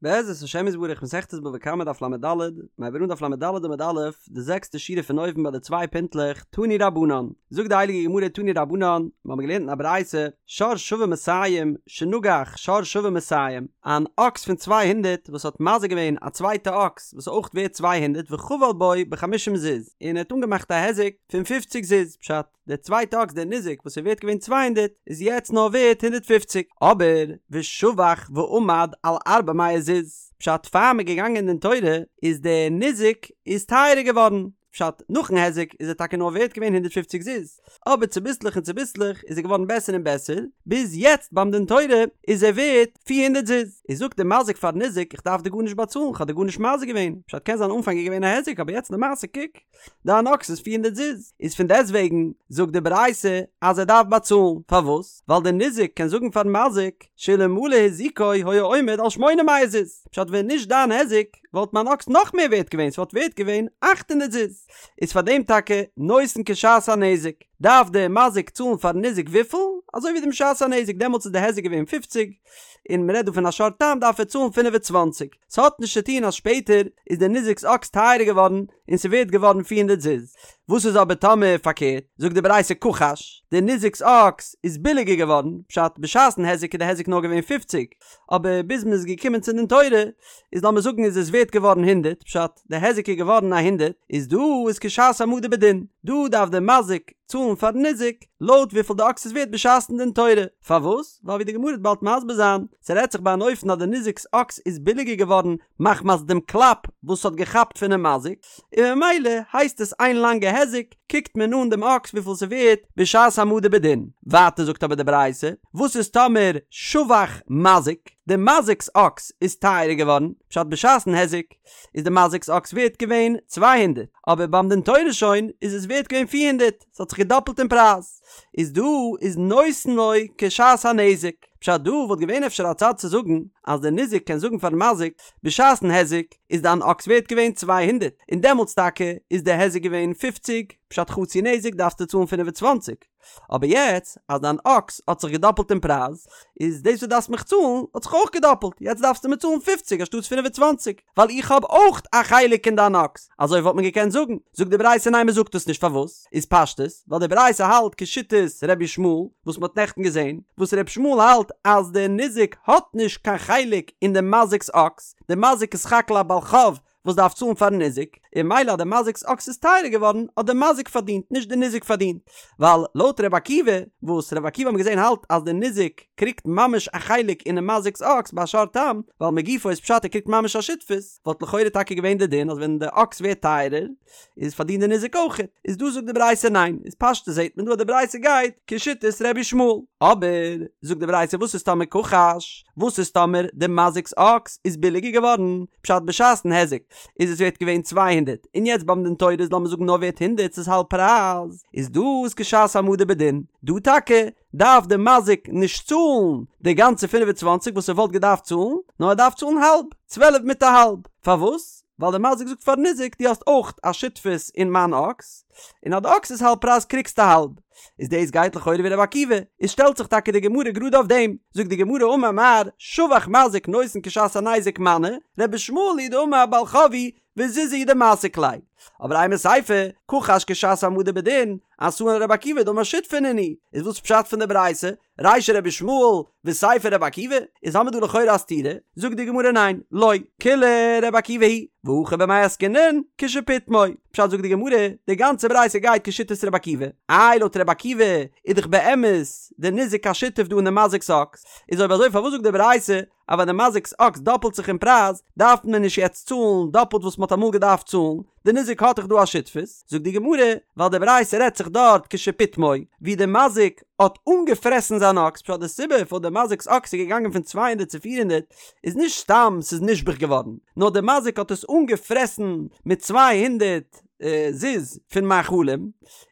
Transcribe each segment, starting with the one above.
בעזרת השם יתברך מסכת בבא קמא דף לד, מ'הייבט אן דף לד עמוד א', די זעקסטע שורה פון אויבן ביי די צוויי פינטלעך, תנו רבנן, זאגט די הייליגע גמרא תנו רבנן, מיר האבן געלערנט אין א ברייתא, שור שווה מאתים, שנגח שור שווה מאתים, אן אקס פון 200 וואס האט מזיק געווען א צווייטע אקס וואס איז אויך ווערט 200 וחבל בו בחמישים זוז, און ער האט אנגעמאכט א היזק פון 50 זוז, פשט, דער צווייטע אקס דער ניזק וואס איז ווערט געווען 200 איז יעצט נאר ווערט 150 אבער ושבח ועמד על ארבע מאות זוז פשט פאר מ'איז געגאנגען אין דין תורה איז דער ניזק איז טייערער געווארן פשט נאכן היזק איז ער טאקע נאר ווערט געווען 150 זוז אבער צוביסלעך און צוביסלעך איז ער געווארן בעסער און בעסער ביז יעצט ביים דין תורה איז ער ווערט 400 זוז איז זאגט דער מזיק פארן ניזק איך דארף דיר גארנישט באצאלן כ'האב דיר גארנישט מזיק געווען פשט קען זיין אנפאנג איז געווען א היזק אבער יעצט למעשה קוק דיין אקס איז 400 זוז, איז פון דעסטוועגן זאגט די ברייתא אז ער דארף באצאלן, פארוואס? ווייל דער ניזק קען זאגן פארן מזיק, שאלמלא הזיקו היה עומד על שמונה מאות זוז, פשט ווען נישט דיין היזק וואלט מיין אקס נאך מער ווערט געווען, ס'וואלט ווערט געווען 800 זוז, איז פאר דעם טאקע נותן כשעת הנזק, דארף דער מזיק צאלן פארן ניזק וויפיל? אזוי ווי דעם שעת הנזק, דעמאלטס איז די היזק געווען 50, און מ'רעדט דא פון א שור תם דארף ער צאלן 25. ס'האט נישט צו טון אז שפעטער איז דער ניזק'ס אקס טייערער געווארן און ס'ווערט געווארן 400 זוז. וואס איז אבער טאמער פארקערט? זאגט די ברייתא כחש, דער ניזק'ס אקס איז ביליגער געווארן, פשט בשעת'ן היזק איז די היזק נאר געווען 50, אבער ביז מ'איז געקומען צו דין תורה איז לאמיר זאגן איז עס ווערט געווארן 100, פשט די היזק איז געווארן א הונדערט, איז דא איז כשעת העמדה בדין, דא דארף דער מזיק צאלן פארן ניזק לויט וויפיל די אקס איז ווערט בשעת'ן דין תורה, פארוואס? ווייל ווי די גמרא וועט באלד מסביר זיין, ס'רעדט זיך ביי אן אופן אז די ניזק'ס אקס איז ביליגער געווארן מחמת דעם קלאפ וואס ס'האט געכאפט פונעם מזיק, און ממילא הייסט עס איין לאנגע היזק, קוקט מען אן דעם אקס וויפיל ס'ווערט בשעת העמדה בדין. ווייטער זאגט אבער די ברייתא, וואס איז טאמער שבח מזיק, די מזיק'ס אקס איז טייערער געווארן, פשט בשעת'ן היזק איז די מזיק'ס אקס ווערט געווען 200, אבער ביים דין תורה שוין איז עס ווערט געווען 400, ס'האט זיך געדאפלט אין פרייז, איז דא איז נותן לו כשעת הנזק, פשט דא וואלט געווען אפשר א צד צו זאגן אז דער ניזק קען זאגן פארן מזיק בשעת'ן היזק איז דיין אקס ווערט געווען 200 און דעמאלטס טאקע איז די היזק געווען 50, פשט חצי נזק דארפסטו צאלן 25, אבער יעצט אז דיין אקס האט זיך געדאפלט אין פרייז איז דאס וואס דארפסט מיך צאלן האט זיך אויך געדאפלט, יעצט דארפסטו מיר צאלן 50 אנשטאטס 25. ווייל איך האב אויך א חלק אין דיין אקס, אזוי וואלט מען געקענט זאגן, זאגט די ברייתא ניין מען זאגט עס נישט פארוואס? איז פשטות ווייל די ברייתא האלט כשיטת ר' ישמעאל וואס מען האט נעכטן געזען, וואס ר' ישמעאל האלט אז דער ניזק האט נישט קיין חלק אין די מזיק'ס אקס, די מזיק איז סך הכל א בעל חוב וואס דארף צאלן פארן ניזק, און ממילא אז די מזיק'ס אקס איז טייערער געווארן האט די מזיק פארדינט נישט די ניזק פארדינט, ווייל לויט ר' עקיבא וואס ר' עקיבא האבן געזען האלט אז די ניזק קריגט ממש א חלק אינעם מזיק'ס אקס ביי שור תם, ווייל מגופו איז פשט ער קריגט ממש א שותפות, וואלט לכאורה טאקע געווען די דין אז ווען די אקס ווערט טייערער איז פארדינט די ניזק אויכעט, איז דא זאגט די ברייתא ניין, איז פשטות זעט מען דא אז די ברייתא גייט כשיטת ר' ישמעאל, אבער זאגט די ברייתא וואס איז טאמער כחש, וואס איז טאמער די מזיק'ס אקס איז ביליגער געווארן, פשט בשעת'ן היזק איז עס ווערט געווען 200 און יעצט ביים דין תורה איז לאמיר זאגן נאר ווערט הונדערט ס'איז האלב פרייז, איז דא איז כשעת העמדה בדין, דא טאקע דארף די מזיק נישט צאלן די גאנצע 25 וואס ער וואלט געדארפט צאלן, נאר ער דארף צאלן האלב, 12 מיט א האלב. פארוואס? ווייל די מזיק זאגט פארן ניזק דו האסט אויך א שותפות אין מיין אקס, און אז די אקס איז האלב פרייז קריגסטו האלב. איז דאס גייט לכאורה ווי רבי עקיבא, איז שטעלט זיך טאקע די גמרא גראד אויף דעם, זאגט די גמרא אמר מר, שבח מזיק נותן כשעת הנזק מני, רבי ישמעאל היא דאמר בעל חוב הוא וזוזי הוא דמסיק ליה. אבער אימא סיפא, כחש כשעת העמדה בדין, אתאן לרבי עקיבא דאמר שותפי נינהו, איז וואס פשט פון די ברייתא? רישא רבי ישמעאל וסיפא רבי עקיבא? איז האמיר דא לכאורה א סתירה, זאגט די גמרא ניין, לא, כולה רבי עקיבא היא, והכא במאי עסקינן, כשפיטמו, פשט זאגט די גמרא, די גאנצע ברייתא גייט כשיטת רבי עקיבא, איי לויט רבי עקיבא איז דאך באמת די ניזק א שותף דא אין די מזיק'ס אקס, איז אויב אזוי פארוואס זאגט די ברייתא אז ווען די מזיק'ס אקס דאפלט זיך אין פרייז, דארף מען נישט יעצט צאלן דאפלט וואס מ'האט אמאל געדארפט צאלן, די ניזק האט דאך דא א שותפות, זאגט די גמרא, ווייל די ברייתא רעדט זיך דארט כשפיטמו, ווי די מזיק האט אנגעפרעסן זיין אקס, פשט די סיבה פארוואס די מזיק'ס אקס איז געגאנגען פון 200 צו 400 איז נישט סתם ס'איז נשבח געווארן, נאר די מזיק האט עס אנגעפרעסן מיט 200 זוז פון מאכלים,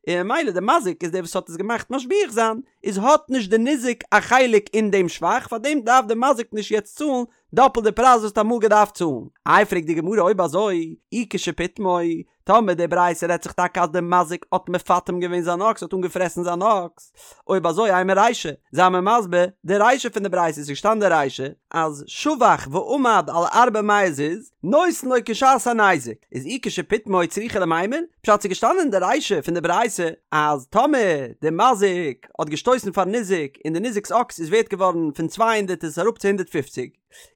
און ממילא די מזיק איז דער וואס האט עס געמאכט משביח זיין, איז האט נישט די ניזק א חלק אין דעם שבח, פארדעם דארף די מזיק נישט יעצט צאלן דאפלט די פרייז וואס האט אמאל געדארפט צאלן. איי פרעגט די גמרא אויב אזוי, אי כשפיטמו, טאמער די ברייתא רעדט זיך טאקע אז די מזיק האט מפטם געווען זיין אקס האט אנגעפרעסן זיין אקס, אויב אזוי אימא רישא, זיי מיר מסביר די רישא פון די ברייתא, ס'איז געשטאנען די רישא. אז שבח ועמד על ארבע מאות זוז, נותן לו כשעת הניזק, איז אי כשפיטמו צריכא למימר, פשט ס'איז געשטאנען אין די רישא פון די ברייתא אז טאמער די מזיק האט געשטויסן פארן ניזק און די ניזק'ס אקס איז ווערט געווארן פון 200 איז עס אראפ צו 150,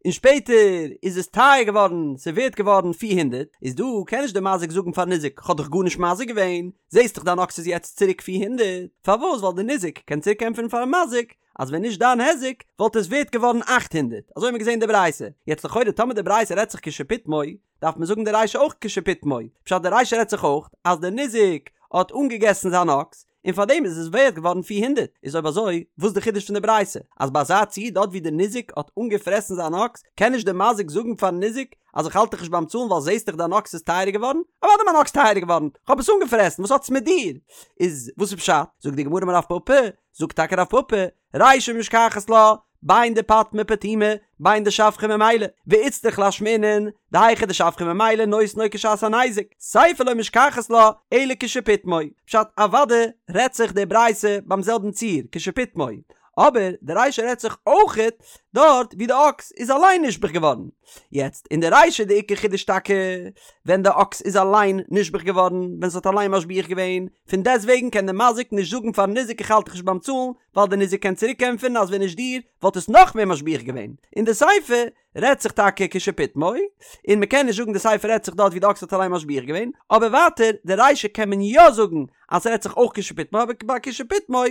און שפעטער איז עס טייער געווארן ס'איז ווערט געווארן 400, איז דא קען נישט די מזיק זאגן פארן ניזק כ'האב דיך גארנישט מזיק געווען, זעסט דאך דיין אקס איז יעצט צוריק 400, פארוואס ווייל די ניזק קען צוריק ענטפערן פארן מזיק אז ווען נישט דיין היזק וואלט עס ווערט געווארן 800, אזוי האט מען געזען אין די ברייתא, יעצט לכאורה טאמער די ברייתא רעדט זיך כשפיטמו, דארף מען זאגן די רישא אויך כשפיטמו, פשט די רישא רעדט זיך אויך אז די ניזק האט אנגעגעסן זיין אקס, און פארדעם איז עס ווערט געווארן 400, איז אויב אזוי וואס די חידוש פון די ברייתא? אז ביי אזא ציור דארט ווי די ניזק האט אנגעפרעסן זיין אקס, קען נישט די מזיק זאגן פארן ניזק אז איך האלט דיך נישט ביים צאלן ווייל זעסט דאך דיין אקס איז טייערער געווארן? אוודאי מיין אקס טייערער געווארן, כ'האב עס אנגעפרעסן, וואס האט עס מיט דיר? איז וואס איז פשט? זאגט די גמרא אמר רב פפא, זאגט טאקע רב פפא, רישא משכחת לה, בין דפטמה פטומי, בין דשבחה ממילא, ואיצטריך לאשמועינן, דהיכא דשבחה ממילא נותן לו כשעת הניזק, סיפא לא משכחת לה, אלא כשפיטמו. פשט, אוודאי רעדט זיך די ברייתא ביים זעלבן ציור, כשפיטמו, אבער די רישא רעדט זיך אויכעט דארט ווי די אקס איז אליין נשבח געווארן. יעצט אין די רישא די עיקר חידוש טאקע ווען די אקס איז אליין נשבח געווארן ווען ס'האט אליין משביח געווען, פון דעסט וועגן קען די מזיק נישט זאגן פארן ניזק איך האלט דיך נישט ביים צאלן ווייל די ניזק קען צוריק ענטפערן אז ווען נישט דיר וואלט עס נאך מער משביח געווען. אין די סיפא רעדט זיך טאקע כשפיטמו, און מ'קען נישט זאגן די סיפא רעדט זיך דארט ווי די אקס האט אליין משביח געווען, אבער ווייטער די רישא קען מען יא זאגן אז ס'רעדט זיך אויך כשפיטמו אבער ביי כשפיטמו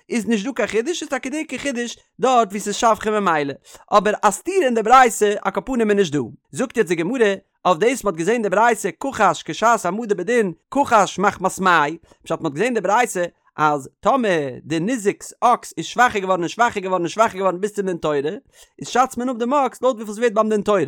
איז נישט דא קיין חידוש איז טאקע די עיקר חידוש דארט ווי ס'איז שבחה ממילא אבער א סתירה אין די ברייתא על כל פנים איז נישט דא. זאגט יעצט די גמרא אויף דאס מ'האט געזען די ברייתא כחש כשעת העמדה בדין כחש מחמת מאי פשט מ'האט געזען די ברייתא אז טאמער די ניזק'ס אקס איז שוואכער געווארן און שוואכער געווארן און שוואכער געווארן ביז צום דין תורה, איז שאצט מען אפ דעם אקס לויט וויפיל ס'ווערט ביים דין תורה.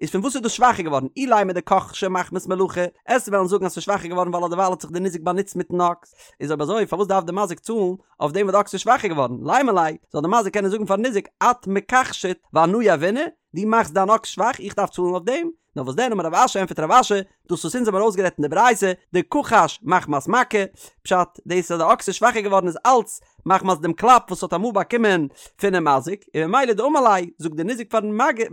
איז פון וואס איז דאס שוואכער געווארן? אילימא דכחשיה מחמת מלאכה, עסט וועלן זאגן אז ס'איז שוואכער געווארן ווייל אדערווייל האט זיך די ניזק באנוצט מיטן אקס. איז אויב אזוי פארוואס דארף די מזיק צאלן אויף דעם וואס די אקס איז שוואכער געווארן? לימא ליה, זאל די מזיק קענען זאגן פארן ניזק את מכחשת ואנא יהבינא, דו מאכסט דיין אקס שוואך איך דארף צאלן אויף דעם? נאר וואס דען אמר רב אשי ענטפערט רב אשי, דאס וואס אונז האבן ארויסגערעדט אין די ברייתא, דכחש מחמת מכה, פשט, דאס אז די אקס איז שוואכער געווארן איז אלץ מחמת דעם קלאפ וואס האט אמאל באקומען פונעם מזיק, און ממילא דאמר ליה, זאגט דער ניזק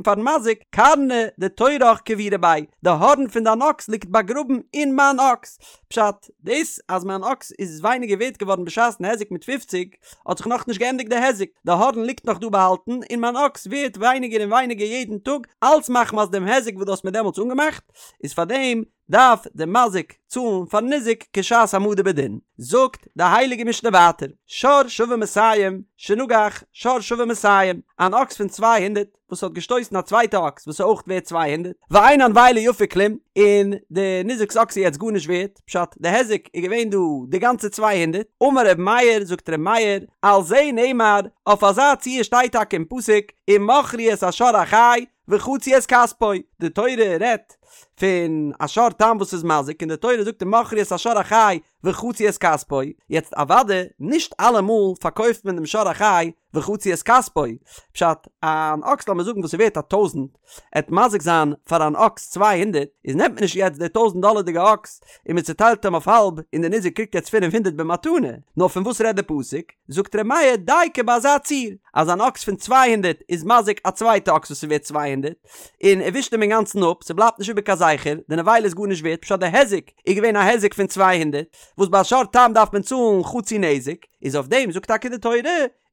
פארן מזיק, קרנא דתורך קבירא ביה, די הארן פון דיין אקס ליגט באגראבן אין מיין אקס, פשט, דאס אז מיין אקס איז ווייניגער ווערט געווארן בשעת'ן היזק מיט פופציג, האט זיך נאכנישט געענדיגט די היזק, די הארן ליגט נאך דא באהאלטן, און מיין אקס ווערט ווייניגער און ווייניגער יעדן טאג, אלץ מחמת דעם היזק וואס דו האסט מיר דעמאלטס אנגעמאכט, איז פארדעם דארף דער מזיק צאלן פארן ניזק כשעת העמדה בדין. זאגט די הייליגע משנה ווייטער, שור שווה מאתים, שנגח שור שווה מאתים, אן אקס פון 200 וואס האט געשטויסן א צווייטע אקס וואס איז אויך ווערט 200, ואין הנבילה יפה כלום, און די ניזק'ס אקס איז יעצט גארנישט ווערט, פשט, די היזק איז געווען דא די גאנצע 200, אמר ר' מאיר, זאגט ר' מאיר, על זה נאמר, אויף אזא ציור שטייט טאקע אין פסוק, ומכרו את השור החי, וחצו את כספו, די תורה רעדט פון א שור תם וואס איז מזיק און די תורה זאגט ומכרו את השור החי וחצו את כספו, יעצט אוודאי נישט אלעמאל פארקויפט מען דעם שור החי וחצו את כספו, פשט, אן אקס לאמיר זאגן וואס איז ווערט א טויזנט, עט מזיק זיין פאר אן אקס 200, איז נעמט מען נישט יעצט די טויזנט דאלערדיגע אקס און מען צוטיילט אים אויף האלב און די ניזק קריגט יעצט 500 במתנה, נאר פון וואס רעדט די פסוק? זאגט ר' מאיר דייקא ביי אזא ציור, אז אן אקס פון 200 איז מזיק א צווייטע אקס וואס איז ווערט 200, און ער ווישט אים אינגאנצן אפ, ס'בלייבט נישט איבער קיין זכר, די נבילה איז גארנישט ווערט, פשט די היזק איז געווען א היזק פון 200, וואס ביי א שור תם דארף מען צאלן חצי נזק, איז אויף דעם זאגט טאקע די תורה,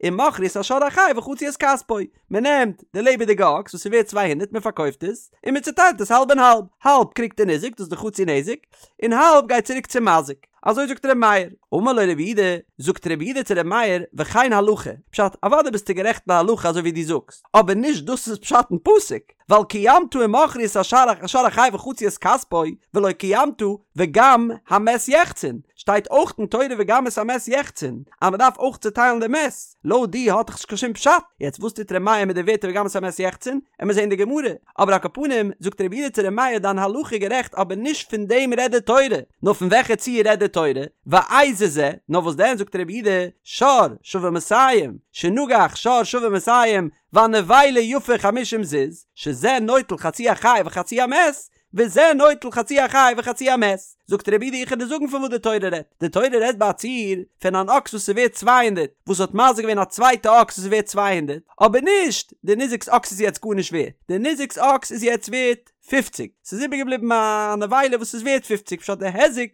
ומכרו את השור החי וחצו את כספו, מען נעמט די לעבעדיגע אקס וואס איז ווערט 200 מען פארקויפט עס, און מען צוטיילט עס האלב און האלב, האלב קריגט די ניזק דאס איז די חצי נזק, און האלב גייט צוריק צום מזיק. אזוי זאגט ר' מאיר. אמר לו רבי יהודה, זאגט רבי יהודה צו ר' מאיר, וכן הלכה, פשט, אוודאי ביסטו גערעכט להלכה אזוי ווי דו זאגסט, אבער נישט דאס איז פשט אין פסוק, ווייל קיימת ומכרו את השור החי וחצו את כספו, ולא קיימת וגם המת יחצון, שטייט אויך אין תורה וגם את המת יחצון, אז מען דארף אויך צוטיילן די מת, לויט דיר האט דאך נישט קיין שום פשט, יעצט וואס טוט ר' מאיר מיט די ווערטער וגם את המת יחצון, עמיר זעהן די גמרא, אבער על כל פנים, זאגט רבי יהודה צו ר' מאיר דיין הלכה איז גערעכט אבער נישט פון דעם רעדט די תורה, נאר פון וועלכע ציור רעדט די תורה, ואיזה זה, נאר וואס דען זאגט רבי יהודה, שור שווה מאתים, שנגח שור שווה מאתים, והנבילה יפה חמישים זוז, שזה נוטל חצי החי וחצי המת, וזה נוטל חצי החי וחצי המת. זאגט רבי יהודה איך וועל דיר זאגן פון וואס די תורה רעדט, די תורה רעדט ביי א ציור פון אן אקס וואס איז ווערט 200, וואס האט מזיק געווען א צווייטע אקס וואס איז ווערט 200, אבער נישט די ניזק'ס אקס איז יעצט גארנישט ווערט, די ניזק'ס אקס איז יעצט ווערט פופציג, ס'איז איבערגעבליבן א נבילה וואס איז ווערט פופציג, פשט די היזק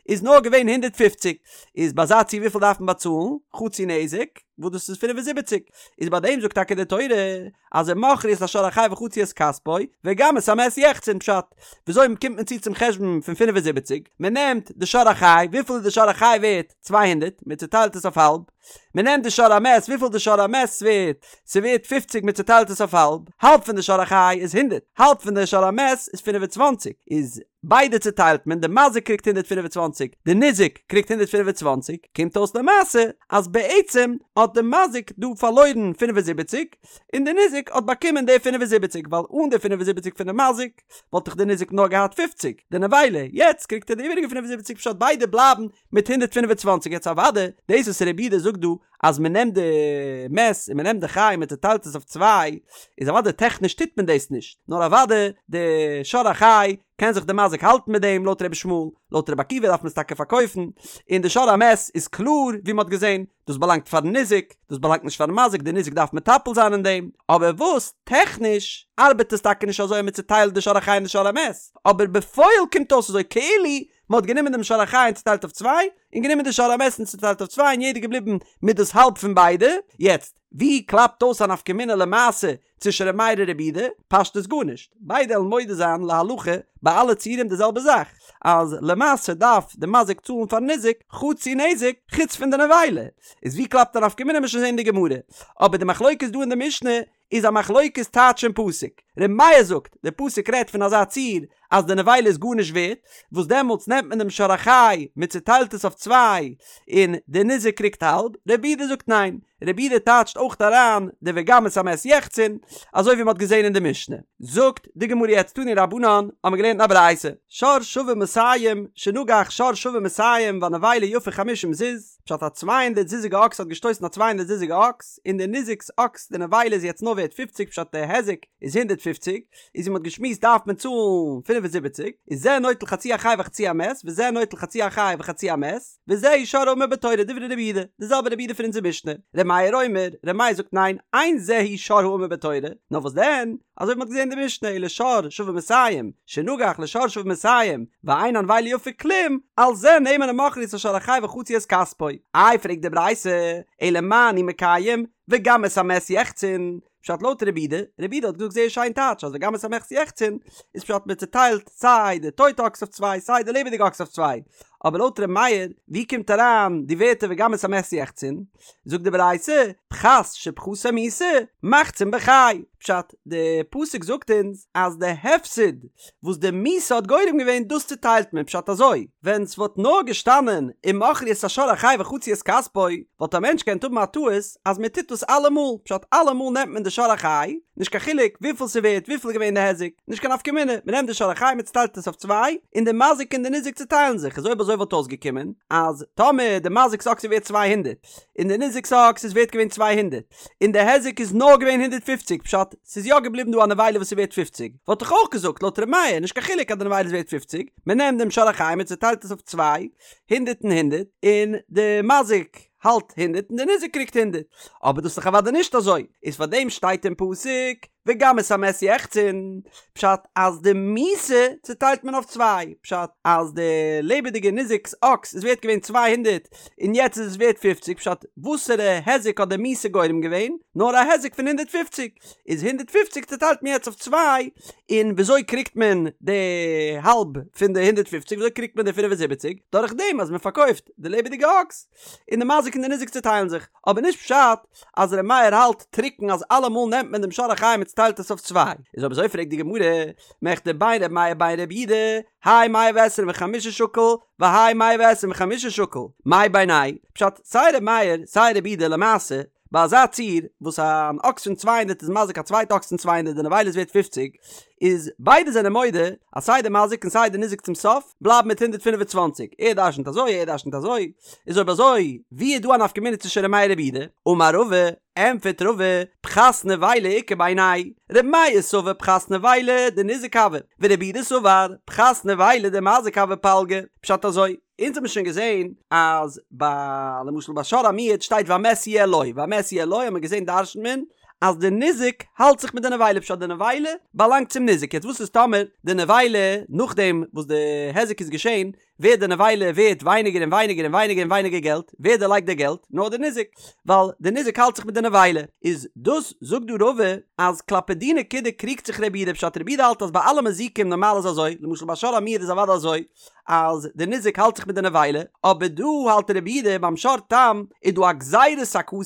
איז נאר געווען 150, איז ביי אזא ציור וויפיל דארף מען באצאלן? חצי נזק, וואס דאס איז 75, איז ביי דעם זאגט טאקע די תורה אז ומכרו את השור החי וחצו את כספו, וגם את המת יחצון, פשט, וויאזוי קומט מען צו צום חשבון פון 75, מען נעמט די שור החי, וויפיל איז די שור החי ווערט? 200, מען צוטיילט עס אויף האלב, מען נעמט די שור המת, וויפיל די שור המת ווערט? ס'ווערט פופציג מען צוטיילט עס אויף האלב, האלב פון די שור החי איז הונדערט, האלב פון די שור המת איז 25, איז ביידע צוטיילט מען, די מזיק קריגט 125, די ניזק קריגט 125, קומט אויס למעשה אז בעצם האט די מזיק דא פארלוירן 75, און די ניזק האט באקומען די 75, ווייל אן די 75 פון די מזיק וואלט דאך די ניזק נאר געהאט 50, די נבילה, יעצט קריגט ער די איבעריגע 75 פשט ביידע בלייבן מיט 125, יעצט אוואדע דאס וואס רבי יהודה זאגט דא אז מען נעמט די מת און מען נעמט די חי און מען צוטיילט עס אויף צוויי, איז אוודאי טעכניש טוט מען דאס נישט, נאר אוודאי די שור החי קען זיך די מזיק האלטן מיט דעם לויט רבי ישמעאל, לויט רבי עקיבא דארף מען עס טאקע פארקויפן, און די שור המת איז קלאר ווי מען האט געזען, דאס באלאנגט פארן ניזק, דאס באלאנגט נישט פארן מזיק, די ניזק דארף מטפל זיין אין דעם, אבער וואס טעכניש ארבעט עס טאקע נישט אזוי אז מען צוטיילט די שור החי און די שור המת, אבער בפועל קומט אויס אזוי כאילו מען האט גענומען דעם שור החי און צוטיילט אויף צוויי, און גענומען די שור המת און צוטיילט אויף צוויי און יעדער געבליבן מיט דאס האלב פון ביידע, יעצט ווי קלאפט אויס א נפקא מינה למעשה צווישן ר' מאיר און רבי יהודה? פשטות גארנישט, ביידע וועלן מודה זיין להלכה ביי אלע ציורים די זעלבע זאך, אז למעשה דארף די מזיק צאלן פארן ניזק חצי נזק חוץ פון די נבילה, איז ווי קלאפט א נפקא מינה מ'עט שוין זעהן אין די גמרא, אבער די מחלוקת דא אין די משנה איז א מחלוקת טייטש אין פסוק. ר' מאיר זאגט, דער פסוק רעדט פון אזא ציור אז די נבילה איז גארנישט ווערט, וואס דעמאלטס נעמט מען דעם שור החי, מען צוטיילט עס אויף צוויי, און דער ניזק קריגט האלב, רבי יהודה זאגט ניין, רבי יהודה טייטשט אויך אריין די וגם את המת יחצון, אזוי ווי מען האט געזען אין די משנה. זאגט די גמרא יעצט תנו רבנן, האבן מיר געלערנט אין א ברייתא, שור שווה מאתים, שנגח שור שווה מאתים והנבילה יפה חמישים זוז, פשט א 200 זוזיגע אקס האט געשטויסן א 200 זוזיגע אקס, און די ניזק'ס אקס די נבילה איז יעצט נאר ווערט 50 פשט די היזק איז 150, איז ווי מ'האט געשמועסט דארף מען צאלן 75, איז זה נוטל חצי החי וחצי המת, וזה נוטל חצי החי וחצי המת, וזהו שור האמור בתורה דברי רבי יהודה, די זעלבע רבי יהודה פון אונזער משנה, ר' מאיר אומר, ר' מאיר זאגט ניין, אין זהו שור האמור בתורה, נאר וואס דען, אזוי ווי מ'האט געזען אין די משנה, אלא שור שווה מאתים, שנגח לשור שווה מאתים, ואין הנבילה יפה כלום, על זה נאמר ומכרו את השור החי וחצו את כספו. איי פרעגט די ברייתא, אלא מה אני מקיים, וגם את המת יחצון, פשט לויט רבי יהודה, רבי יהודה האט געזאגט זייער שיין טייטש אז וגם את המת יחצון איז פשט מען צוטיילט סיי די טויטע אקס אויף צוויי סיי די לעבעדיגע אקס אויף צוויי, אבער לויט ר' מאיר ווי קומט אריין די ווערטער וגם את המת יחצון? זאגט די ברייתא, פחת שפחתו מיתה, מחצין בחי, פשט, די פסוק זאגט אונז אז די הפסד וואס די מיתה האט גורם געווען דאס צוטיילט מען, פשט אזוי, ווען ס'וואלט נאר געשטאנען ומכרו את השור החי וחצו את כספו, וואלט א מענטש געקענט האבן א טעות אז מען טוט דאס אלעמאל, פשט אלעמאל נעמט מען די שור החי, נישט קיין חילוק וויפיל ס'ווערט וויפיל איז געווען די היזק, נישט קיין נפקא מינה, מען נעמט די שור החי מען צוטיילט עס אויף צוויי, און די מזיק און די ניזק צוטיילן זיך, איז אויב אזוי וואלט אויסגעקומען אז טאמער די מזיק'ס אקס איז ווערט 200, און די ניזק'ס אקס איז ווערט געווען 200, און די היזק איז נאר געווען 150, פשט, ס'איז יא געבליבן דא א נבילה וואס איז ווערט 50, וואלט איך אויך געזאגט לויט ר' מאיר, נישט קיין חילוק אז די נבילה איז ווערט 50, מען נעמט דעם שור החי מען צוטיילט עס אויף צוויי, הונדערט און הונדערט, און די מזיק האלט הונדערט און די ניזק קריגט הונדערט, אבער דאס איז דאך אוודאי נישט אזוי, איז פאר דעם שטייט אין פסוק וגם את המת יחצון, פשט אז די מיתה צוטיילט מען אויף צוויי, פשט אז די לעבעדיגע ניזק'ס אקס איז ווערט געווען 200 און יעצט איז עס ווערט פופציג, פשט וואסערע היזק האט די מיתה גורם געווען? נאר א היזק פון 150, איז 150 צוטיילט מען יעצט אויף צוויי, און וויאזוי קריגט מען די האלב פון די 150, וויאזוי קריגט מען די 75? דורך דעם אז מען פארקויפט די לעבעדיגע אקס, און די מזיק און די ניזק צוטיילן זיך, אבער נישט פשט אז ר' מאיר האלט טרוקן אז אלעמאל נעמט מען דעם שור החי און מען צוטיילט עס אויף צוויי, איז אויב אזוי פרעגט די גמרא, מכדי בין ר' מאיר בין ר' יהודה, האי מאה ועשרים וחמשה שקיל, והאי מאה ועשרים וחמשה שקיל, מאי בינייהו פשט סיי ר' מאיר סיי ר' יהודה למעשה. ביי אזא ציור וואס אן אקס פון צוויי הונדערט איז מזיק א צווייטע אקס פון צוויי הונדערט די נבילה איז ווערט פופציג, איז ביידע זענען מודה אז סיי די מזיק און סיי די ניזק צום סוף בלייבן מיט 125, ער דרשנ'ט אזוי ער דרשנ'ט אזוי, איז אויב אזוי ווי איז דא א נפקא מינה צווישן ר' מאיר רבי יהודה? אמר רבא, ענטפערט רבא, פחת נבילה איכא בינייהו, ר' מאיר סבר פחת נבילה דניזק הוי, ורבי יהודה סבר פחת נבילה דמזיק הוי פלגא, פשט אזוי, אונז האבן שוין געזען אז ביי למשל ביי שור המועד שטייט והמת יהיה לו, והמת יהיה לו האט מען געזען דרשנ'ט מען אז די ניזק האלט זיך מיט די נבילה פשט די נבילה באלאנגט צום ניזק יעצט וואס איז טאמער די נבילה נאכדעם וואס די היזק איז געשען ווערט די נבילה ווערט ווייניגער און ווייניגער און ווייניגער און ווייניגער געלט ווער דערלייגט די געלט נאר די ניזק ווייל די ניזק האלט זיך מיט די נבילה איז דאס זאגט דא רבא אז כלפי די נקודה קריגט זיך רבי יהודה פשט רבי יהודה האלט אז ביי אלע מזיקים נארמאל איז אזוי למשל ביי שור המועד איז אוודאי אזוי אז די ניזק האלט זיך מיט די נבילה, אבער דא האלט רבי יהודה ביים שור תם איז דא א גזירת הכתוב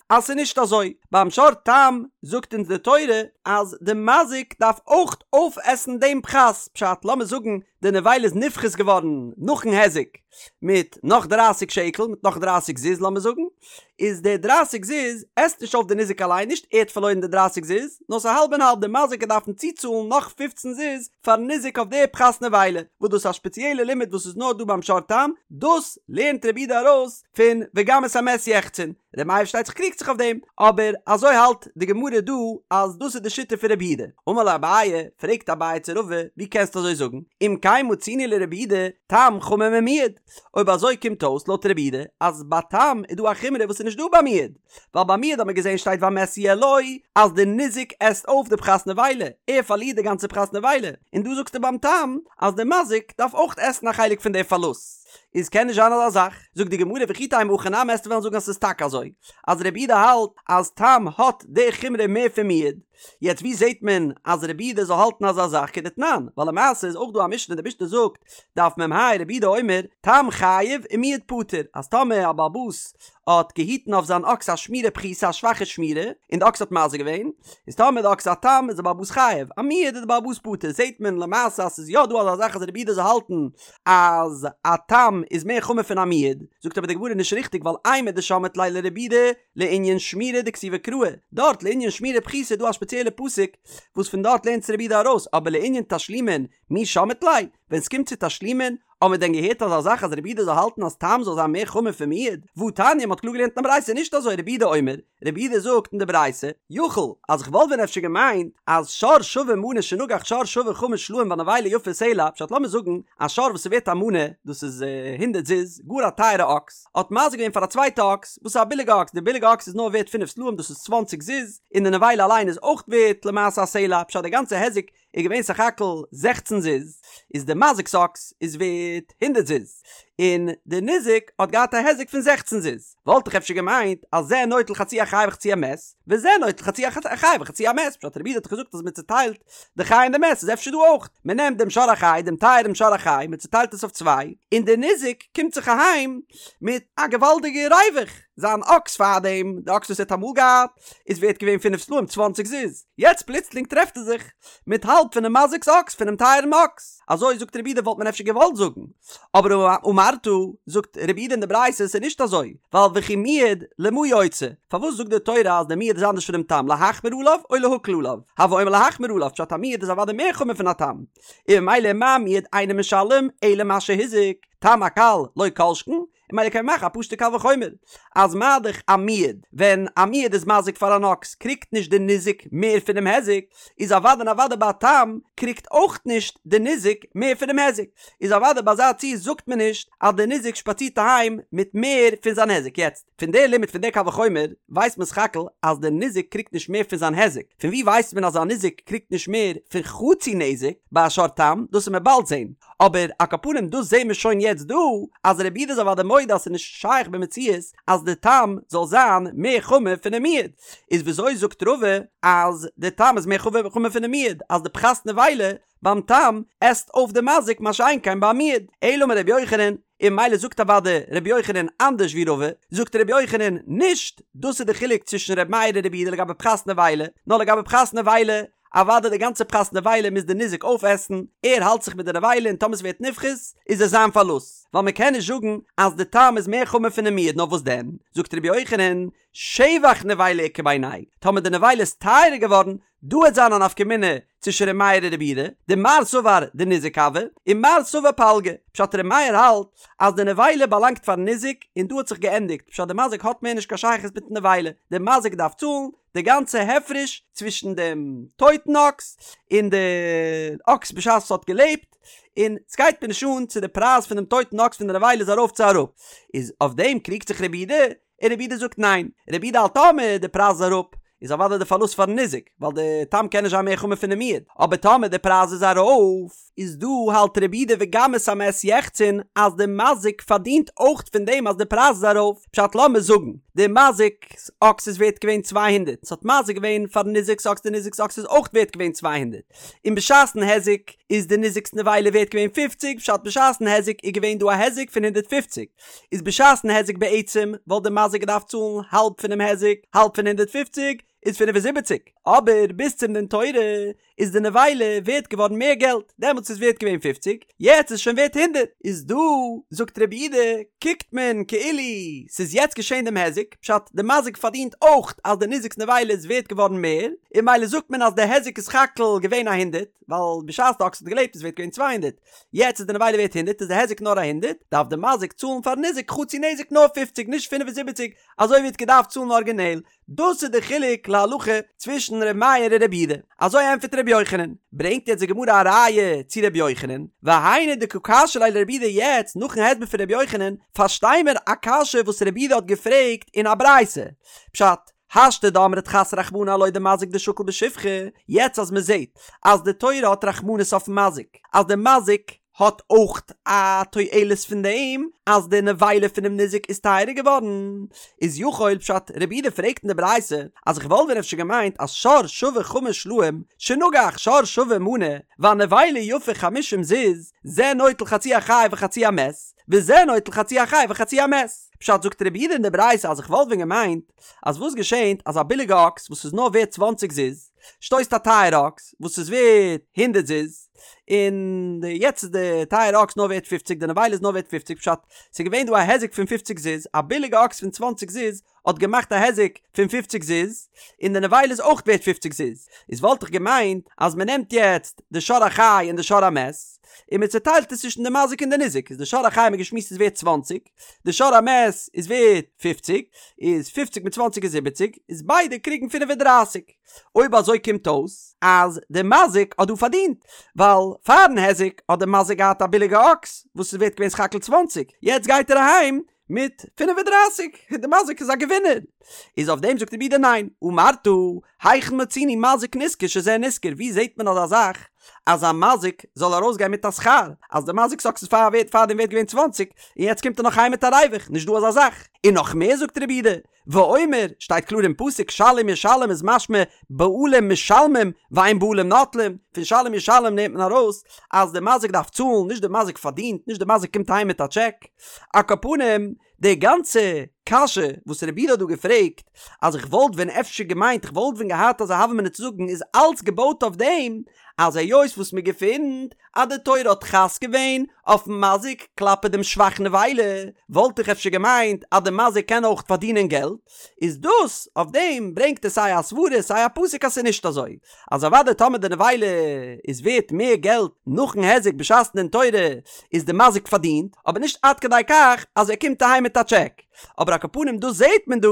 אז ס'איז נישט אזוי, ביים שור תם זאגט אונז די תורה אז די מזיק דארף אויך אויפעסן דעם פחת, פשט לאמיר זאגן די נבילה איז נפחת געווארן נאכן היזק מיט נאך דרייסיג שקל מיט נאך דרייסיג זוז לאמיר זאגן, איז די דרייסיג זוז עסט נישט אויף די ניזק אליין נישט ער האט פארלוירן די דרייסיג זוז נאר ס'איז האלב און האלב די מזיק וועט דארפן צוצאלן נאך פופצן זוז פארן ניזק אויף די פחת נבילה וואס דאס איז א שפעציעלע לימוד וואס איז נאר דא ביים שור תם דאס לערנט רבי יהודה ארויס פון וגם את המת יחצון רבי מאיר פארשטייט זיך קריגט זיך אויף דעם אבער אזוי האלט די גמרא דא אז דאס איז די שיטה פון רבי יהודה אמר ליה אביי פרעגט אביי צו רבא ווי קענסטו אזוי זאגן אם כן מצינו לרבי יהודה תם חמור ממועד אויב אזוי קומט אויס לויט רבי יהודה אז ביי תם איז דא א חומרא וואס איז נישט דא ביי מועד, ווייל ביי מועד האט מען געזען שטייט והמת יהיה לו אז די ניזק עסט אויף די פחת נבילה, ער פארלירט די גאנצע פחת נבילה, און דא זאגסטו ביים תם אז די מזיק דארף אויך עסן א חלק פון די פארלוסט, איז קען נישט זיין אזא זאך, זאגט די גמרא וכי תימא הכי נמי עסטו וועלן זאגן אז ס'איז טאקע אזוי אז רבי יהודה האלט אז תם האט די חומרא מער פון מועד, יעצט ווי זעט מען אז רבי יהודה זאל האלטן אזא זאך כדתנן, ווייל למעשה איז אויך דא א משנה די משנה זאגט דף מ"ה רבי יהודה אומר תם חייב ומועד פטור אז טאמער א בעל הבית האט געהיטן אויף זיין אקס א שמירה פחותה א שוואכע שמירה און די אקס האט מזיק געווען איז טאמער די אקס איז א תם איז די בעל הבית חייב א מועד איז די בעל הבית פטור זעט מען למעשה אז ס'איז יא דא אזא זאך אז רבי יהודה זאל האלטן אז א תם איז מער חמור פון א מועד זאגט אבער די גמרא נישט ריכטיג ווייל אימר דשמעת ליה לרבי יהודה לענין שמירה דכתיבי קראי, דארט לענין שמירה פחותה איז דא א שפעציעלע פסוק וואס פון דארט לערנט רבי יהודה ארויס, אבער לענין תשלומין מי שמעת ליה, ווען סקומט צו תשלומין, האט מען דען געהערט אזא זאך אז רבי יהודה זאל האלטן אז תם זאל זיין מער חמור פון מועד? והתניא מ'האט קלאר געלערנט אין א ברייתא נישט אזוי רבי יהודה אומר, רבי יהודה זאגט אין די ברייתא, יכול, אז כ'וואלט ווען אפשר געמיינט אז שור שווה מנה שנגח שור שווה חמש סלעים והנבילה יפה סלע, פשט לאמיר זאגן א שור וואס איז ווערט א מנה, דאס איז הונדערט זוז, גאר א טייערע אקס, האט מזיק געווען פאר א צווייטע אקס וואס איז א ביליגע אקס, די ביליגע אקס איז נאר ווערט פינף סלעים דאס איז צוואנציג זוז, און די נבילה אליין איז אויך ווערט למעשה א סלע, פשט די גאנצע היזק איז געווען סך הכל זעכצן זוז, איז די מזיק'ס אקס איז ווערט הונדערט זוז, און די ניזק האט געהאט א היזק פון זעכצן זוז, וואלט איך אפשר געמיינט אז זה נוטל חצי החי וחצי המת, וזה נוטל חצי החי וחצי המת, פשט רבי יהודה האט דאך געזאגט אז מען צוטיילט די חי און די מת איז אפשר דא אויך, מען נעמט דעם שור החי, דעם טייערן שור החי, מען צוטיילט עס אויף צוויי, און דער ניזק קומט זיך אהיים מיט א געוואלדיגע ריווח, זיין אקס פארדעם, די אקס וואס ער האט אמאל געהאט, איז ווערט געווען פינף סלעים צוואנציג זוז, יעצט פלוצלינג טרעפט ער זיך מיט האלב פונעם מזיק'ס אקס, פונעם טייערן אקס, אזוי זאגט רבי יהודה וואלט מען אפשר געוואלט זאגן, אבער אמרת, זאגט רבי יהודה אין די ברייתא ס'איז נישט אזוי, ווייל וכי מועד למה יוצא, פארוואס זאגט די תורה אז די מועד איז אנדערש פונעם תם, להחמיר עליו או להקל עליו, הוי אומר להחמיר עליו, פשט א מועד איז אוודאי מער חמור פון א תם, און ממילא מה מועד אינו משלם אלא מה שהזיק, תם הקל לא כל שכן, און ממילא קען מען מאכן א פשוטע קל וחומר אז מה דאך א מועד, ווען א מועד איז מזיק פאר אן אקס קריגט נישט די ניזק מער פונעם היזק, איז אוודאי און אוודאי ביי א תם קריגט אויך נישט די ניזק מער פונעם היזק, איז אוודאי ביי אזא ציור זאגט מען נישט אז די ניזק שפאצירט אהיים מיט מער פון זיין היזק, יעצט פון די לימוד פון די קל וחומר ווייסט מען סך הכל אז די ניזק קריגט נישט מער פון זיין היזק, פון ווי ווייסט מען אז א ניזק קריגט נישט מער פון חצי נזק ביי א שור תם, דאס וועט מען באלד זען. אבער על כל פנים דאס זעהן מיר שוין יעצט דא אז רבי יהודה איז אוודאי מודה אז ס'איז נישט שייך במציאות אז די תם זאל זיין מער חמור פונעם מועד, איז וויאזוי זאגט רבא אז די תם איז מער חמור פונעם מועד אז די פחת נבילה ביים תם עסט אויף די מזיק מה שאין כן ביים מועד, אלא אמר רבי יוחנן, און ממילא זאגט אוודאי רבי יוחנן אנדערש ווי רבא, זאגט רבי יוחנן נישט דאס איז די חילוק צווישן רבי מאיר און רבי יהודה לגבי פחת נבילה, נאר לגבי פחת נבילה אוודאי די גאנצע פחת נבילה מוז די ניזק אויפעסן, ער האלט זיך מיט די נבילה און טאמער ס'ווערט נפחת איז עס זיין פארלוסט, ווייל מ'קען נישט זאגן אז די תם איז מער חמור פונעם מועד נאר וואס דען זאגט רבי יוחנן. שבח נבילה איכא בינייהו, טאמער די נבילה איז טייערער געווארן, דא וועט זיין א נפקא מינה צווישן ר' מאיר און רבי יהודה, דמר סבר דניזק הוי, און מר סבר פלגא, פשט ר' מאיר האלט אז די נבילה באלאנגט פארן ניזק און דא האט זיך געענדיגט, פשט די מזיק האט מער נישט קיין שייכות מיטן נבילה, די מזיק דארף צאלן די גאנצע הפרש צווישן דעם טויטן אקס און די אקס בשעת עס האט געלעבט, און סגייט מיר נישט אן צו די פרייז פון דעם טויטן אקס פון די נבילה איז ארויף צו אראפ, איז אויף דעם קריגט זיך רבי יהודה, און רבי יהודה זאגט ניין, רבי יהודה האלט טאמער די פרייז איז אראפ איז אוודאי די פארלוסט פארן ניזק, ווייל די תם קען נישט זיין מער חמור פונעם מועד, אבער טאמער די פרייז איז ארויף, איז דא האלט רבי יהודה וגם את המת יחצון אז די מזיק פארדינט אויך פון דעם אז די פרייז איז ארויף, פשט לאמיר זאגן די מזיק'ס אקס איז ווערט געווען 200, ס'האט מזיק געווען פארן ניזק'ס אקס די ניזק'ס אקס איז אויך ווערט געווען 200, און בשעת'ן היזק איז די ניזק'ס נבילה ווערט געווען 50, פשט בשעת'ן היזק איז געווען דא א היזק פון 150. איז בשעת'ן היזק בעצם וואלט די מזיק געדארפט צאלן האלב פונעם היזק, האלב פון 150 איז 75, אבער ביז צום דין תורה איז די נבילה ווערט געווארן מער געלט, דעמאלטס איז ווערט געווען פופציג, יעצט איז שוין ווערט הונדערט, איז דא זאגט רבי יהודה קוקט מען כאילו ס'איז יעצט געשען דעם היזק, פשט די מזיק פארדינט אויך אז די ניזק'ס נבילה איז ווערט געווארן מער, און ממילא זאגט מען אז די היזק איז סך הכל געווען א הונדערט, ווייל בשעת די אקס האט געלעבט איז ווערט געווען 200, יעצט איז די נבילה ווערט הונדערט איז די היזק נאר א הונדערט, דארף די מזיק צאלן פארן ניזק חצי נזק נאר פופציג נישט 75 אזוי ווי ער האט געדארפט צאלן ארגינעל, דאס איז די חילוק להלכה צווישן ר' מאיר און ר' יהודה, אזוי ענטפערט ר' יוחנן, ברענגט יעצט די גמרא א ראיה צו ר' יוחנן, והיינו דקא קשיא ליה לר' יהודה יעצט נאכן הסבר פון ר' יוחנן פארשטיי מיר א קשיא וואס ר' יהודה האט געפרעגט אין א ברייתא, פשט, השתא דאמרת חס רחמנא עילויה דמזיק דשקיל בשבחא, יעצט אז מען זעט אז די תורה האט רחמנות אויפן מזיק, אז די מזיק האט אויך א תועלת פון דעם אז די נבילה פונעם ניזק איז טייערער געווארן, איז יכול פשט רבי יהודה פרעגט אין די ברייתא אז איך וואלט ווען אפשר געמיינט אז שור שווה חמש סלעים שנגח שור שווה מנה והנבילה יפה חמישים זוז זה נוטל חצי החי וחצי המת וזה נוטל חצי החי וחצי המת פשט זאגט רבי יהודה אין די ברייתא אז איך וואלט ווען געמיינט אז וואס געשענט אז א ביליגע אקס וואס איז נאר ווערט צוואנציג זוז שטויסט א טייערע אקס וואס איז ווערט הונדערט זוז און די יעצט איז די טייערע אקס נאר ווערט פופציג די נבילה איז נאר ווערט פופציג פשט ס'איז געווען דא א היזק פון פופציג זוז א ביליגע אקס פון צוואנציג זוז האט געמאכט א היזק פון פופציג זוז און די נבילה איז אויך ווערט פופציג זוז איז וואלט איך געמיינט אז מ'נעמט יעצט די שור החי און די שור המת און מ'צוטיילט עס צווישן די מזיק און די ניזק איז די שור החי האט מען געשמועסט איז ווערט צוואנציג די שור המת איז ווערט פופציג, איז פופציג מיט צוואנציג איז זיבעציג, איז ביידע קריגן פינף און דרייסיג. אויב אזוי קומט אויס אז די מזיק האט דא פארדינט, ווייל פארן היזק האט די מזיק געהאט א ביליגע אקס וואס איז ווערט געווען סך הכל צוואנציג, יעצט גייט ער אהיים מיט פינף און דרייסיג, די מזיק איז א געווינער. איז אויף דעם זאגט רבי יהודה ניין, אמרת היכן מצינו מזיק נשכר שזה נשכר, ווי זעט מען אזא זאך אז א מזיק זאל ארויסגיין מיט א שכר, אז די מזיק'ס אקס איז פאר ווערט פארדעם ווערט געווען צוואנציג, און יעצט קומט ער נאך אהיים מיט א ריווח, נישט דא אזא זאך. און נאך מער זאגט רבי יהודה, ואומר, שטייט קלאר אין פסוק שלם ישלם איז משמע בעלים משלמים ואין בעלים נוטלים, פון שלם ישלם נעמט מען ארויס אז די מזיק דארף צאלן, נישט די מזיק פארדינט, נישט די מזיק קומט אהיים מיט א טשעק. על כל פנים, די גאנצע קשיא וואס רבי יהודה האט דא געפרעגט, אז איך וואלט ווען אפשר געמיינט, איך וואלט ווען געהאט אזא הוה אמינא צו זאגן, איז אלץ געבויט אויף דעם אז היות וואס מען געפינט אז די תורה האט חס געווען אויפן מזיק כלפי דעם שבח נבילה, וואלט איך אפשר געמיינט אז די מזיק קען אויך פארדינען געלט, איז דאס אויף דעם ברענגט ער סיי א סברה סיי א פסוק אז ס'איז נישט אזוי אז אוודאי טאמער די נבילה איז ווערט מער געלט נאכן היזק בשעת'ן דין תורה איז די מזיק פארדינט, אבער נישט עד כדי כך אז ער קומט אהיים מיט א טשעק. אבער על כל פנים דא זעהט מען דא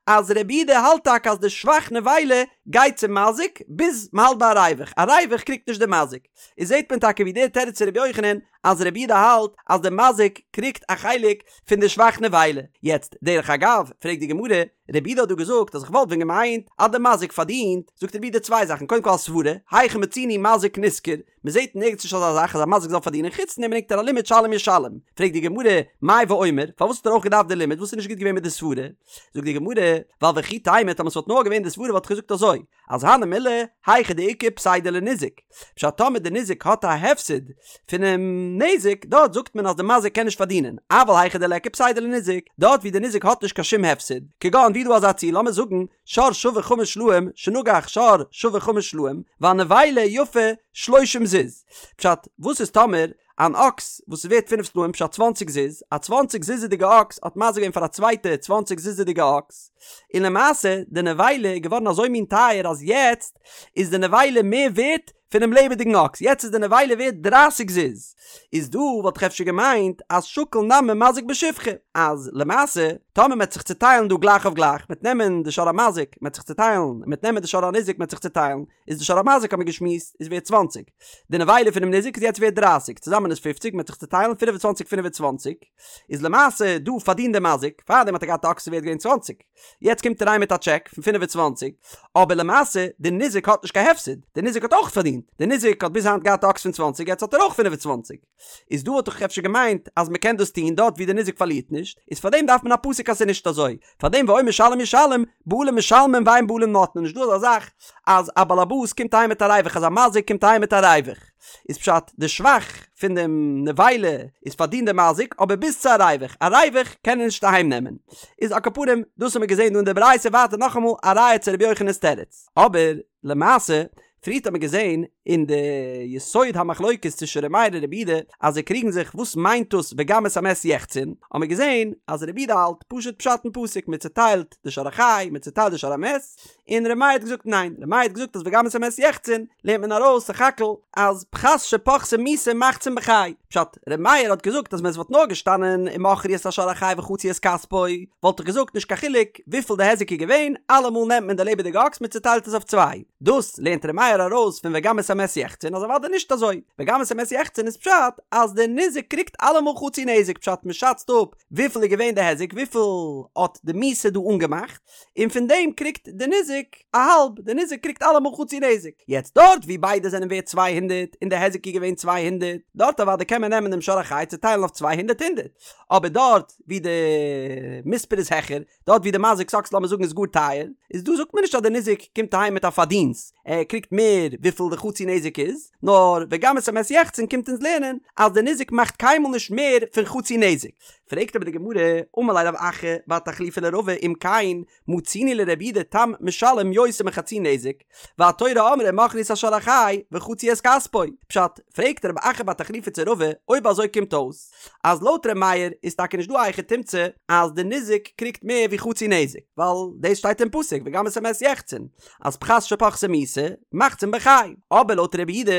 אז רבי יהודה האלט טאקע אז די שבח נבילה גייט צום מזיק ביז מ'האלט ביי א ריווח, א ריווח קריגט נישט די מזיק. איז זעהט מען טאקע ווי דער תירוץ פון רבי יוחנן אז רבי יהודה האלט אז די מזיק קריגט א חלק פון די שבח נבילה. יעצט דרך אגב פרעגט די גמרא, רבי יהודה האט דא געזאגט אז איך וואלט ווען געמיינט אז די מזיק פארדינט, זאגט רבי יהודה צוויי זאכן, קודם כל א סברה, היכן מצינו מזיק נשכר, מען זעט נערגעץ נישט אזא זאך אז א מזיק זאל פארדינען, חוץ פון דעם ברענגט ער א לימוד שלם ישלם, פרעגט די גמרא, מאי ואומר, פארוואס האט ער אויך געדארפט די לימוד, וואס איז נישט גוט געווען מיט די סברה? זאגט די גמרא, ווייל וכי תימא טאמער ס'וואלט נאר געווען די סברה וואלט איך געזאגט אזוי, אז הני מילי, היכא דאיכא פסידא לניזק, פשט טאמער די ניזק האט א הפסד פונעם נזק, דארט זאגט מען אז די מזיק קען נישט פארדינען, אבל היכא דליכא פסידא לניזק, דארט ווי די ניזק האט נישט קיין שום הפסד, כגון ווי דא אזא ציור לאמיר זאגן שור שווה חמש סלעים שנגח שור שווה חמש סלעים והנבילה יפה שלושים זוז, פשט וואס איז טאמער. אן אקס וואס איז ווערט פינף סלעים פשט צוואנציג זוז, א צוואנציג זוז'דיגע אקס האט מזיק געווען פאר א צווייטע צוואנציג זוז'דיגע אקס, און למעשה די נבילה איז געווארן אזוי מין טייער אז יעצט איז די נבילה מער ווערט פונעם לעבעדיגן אקס, יעצט איז די נבילה ווערט דרייסיג זוז, איז דא וואלט איך אפשר געמיינט אז שקיל נמי מזיק בשבחא, אז למעשה טאמער מ'עט זיך צוטיילן דא גלייך אויף גלייך, מ'עט נעמען די שור המזיק מ'עט זיך צוטיילן, מ'עט נעמען די שור הניזק מ'עט זיך צוטיילן, איז די שור המזיק האט מען געשמועסט איז ווערט צוואנציג, די נבילה פונעם ניזק איז יעצט ווערט דרייסיג, צוזאמען איז פופציג, מ'עט זיך צוטיילן פינף און צוואנציג פינף און צוואנציג, איז למעשה דא פארדינט די מזיק, פארדעם האט ער געהאט א אקס ווערט געווען צוואנציג, יעצט קומט ער אריין מיט א טשעק פון 25, אבער למעשה די ניזק האט נישט קיין הפסד, די ניזק האט אויך פארדינט, די ניזק האט ביז היינט געהאט א אקס פון צוואנציג יעצט האט ער אויך 25, איז דא וואלט איך אפשר געמיינט אז מען קען דאס טון דארט ווי די ניזק פארלירט נישט, איז פארדעם דארף מען א פסוק אז ס'איז נישט אזוי, פארדעם ואומר שלם ישלם, בעלים משלמים ואין בעלים נוטלין, נישט דא אזא זאך אז א באלעבאס קומט אהיים מיט א ריווח אז א מזיק קומט אהיים מיט א ריווח. איז פשט די שבח פון דעם נבילה איז פארדינט די מזיק אבער ביז צו א ריווח, א ריווח קען ער נישט אהיים נעמען. איז על כל פנים דאס האמיר געזען דא אין די ברייתא ווייטער נאכאמאל א ראיה צו רבי יוחנן'ס תירוץ. אבער למעשה פריערט האט מען געזען אין די יסוד המחלוקת צווישן ר' מאיר און רבי יהודה אז זיי קריגן זיך וואס מיינט דאס וגם את המת יחצון, האט מען געזען אז רבי יהודה האלט פשוט פשט אין פסוק מען צוטיילט די שור החי מען צוטיילט די שור המת, און ר' מאיר האט געזאגט ניין, ר' מאיר האט געזאגט אז וגם את המת יחצון לערנט מען ארויס סך הכל אז פחת שפחתה מיתה מחצין בחי, פשט, ר' מאיר האט געזאגט אז ווען עס וואלט נאר געשטאנען ומכרו את השור החי וחצו את כספו וואלט איך געזאגט נישט קיין חילוק וויפיל די היזק איז געווען, אלעמאל נעמט מען די לעבעדיגע אקס מען צוטיילט עס אויף צוויי, דאס לערנט ר' מאיר ארויס פון וגם את המת יחצון אז אוודאי נישט אזוי, וגם את המת יחצון איז פשט אז די ניזק קריגט אלעמאל חצי נזק פשט מען שאצט אפ וויפיל איז געווען די היזק וויפיל האט די מיתה דא אנגעמאכט, און פון דעם קריגט די ניזק א האלב, די ניזק קריגט אלעמאל חצי נזק, יעצט דארט ווי ביידע זענען ווערט 200 און די היזק איז געווען 200, דארט אוודאי קען מען נעמען דעם שור החי צוטיילן אויף 200 הונדערט, אבער דארט ווי די מספר איז העכער, דארט ווי די מזיק'ס אקס לאמיר זאגן איז גאר טייער, איז דא זאגט מען נישט אז די ניזק קומט אהיים מיט א פארדינסט, ער קריגט מער וויפיל די חצי נזק איז, נאר וגם את המת יחצון קומט אונז לערנען אז די ניזק מאכט קיינמאל נישט מער פון חצי נזק. פרעגט אבער די גמרא, אמר ליה רב אחא בר תחליפא לרבא אם כן מצינו לרבי יהודה תם משלם יותר מחצי נזק, והתורה אמרה ומכרו את השור החי וחצו את כספו, פשט, פרעגט רב אחא בר תחליפא צו רבא, אויב אזוי קומט אויס אז לויט ר' מאיר איז טאקע נישט דא א היכי תמצא אז די ניזק קריגט מער ווי חצי נזק, ווייל דאס שטייט אין פסוק וגם את המת יחצון, אז פחת שפחתה מיתה מחצין בחי, אבער לויט רבי יהודה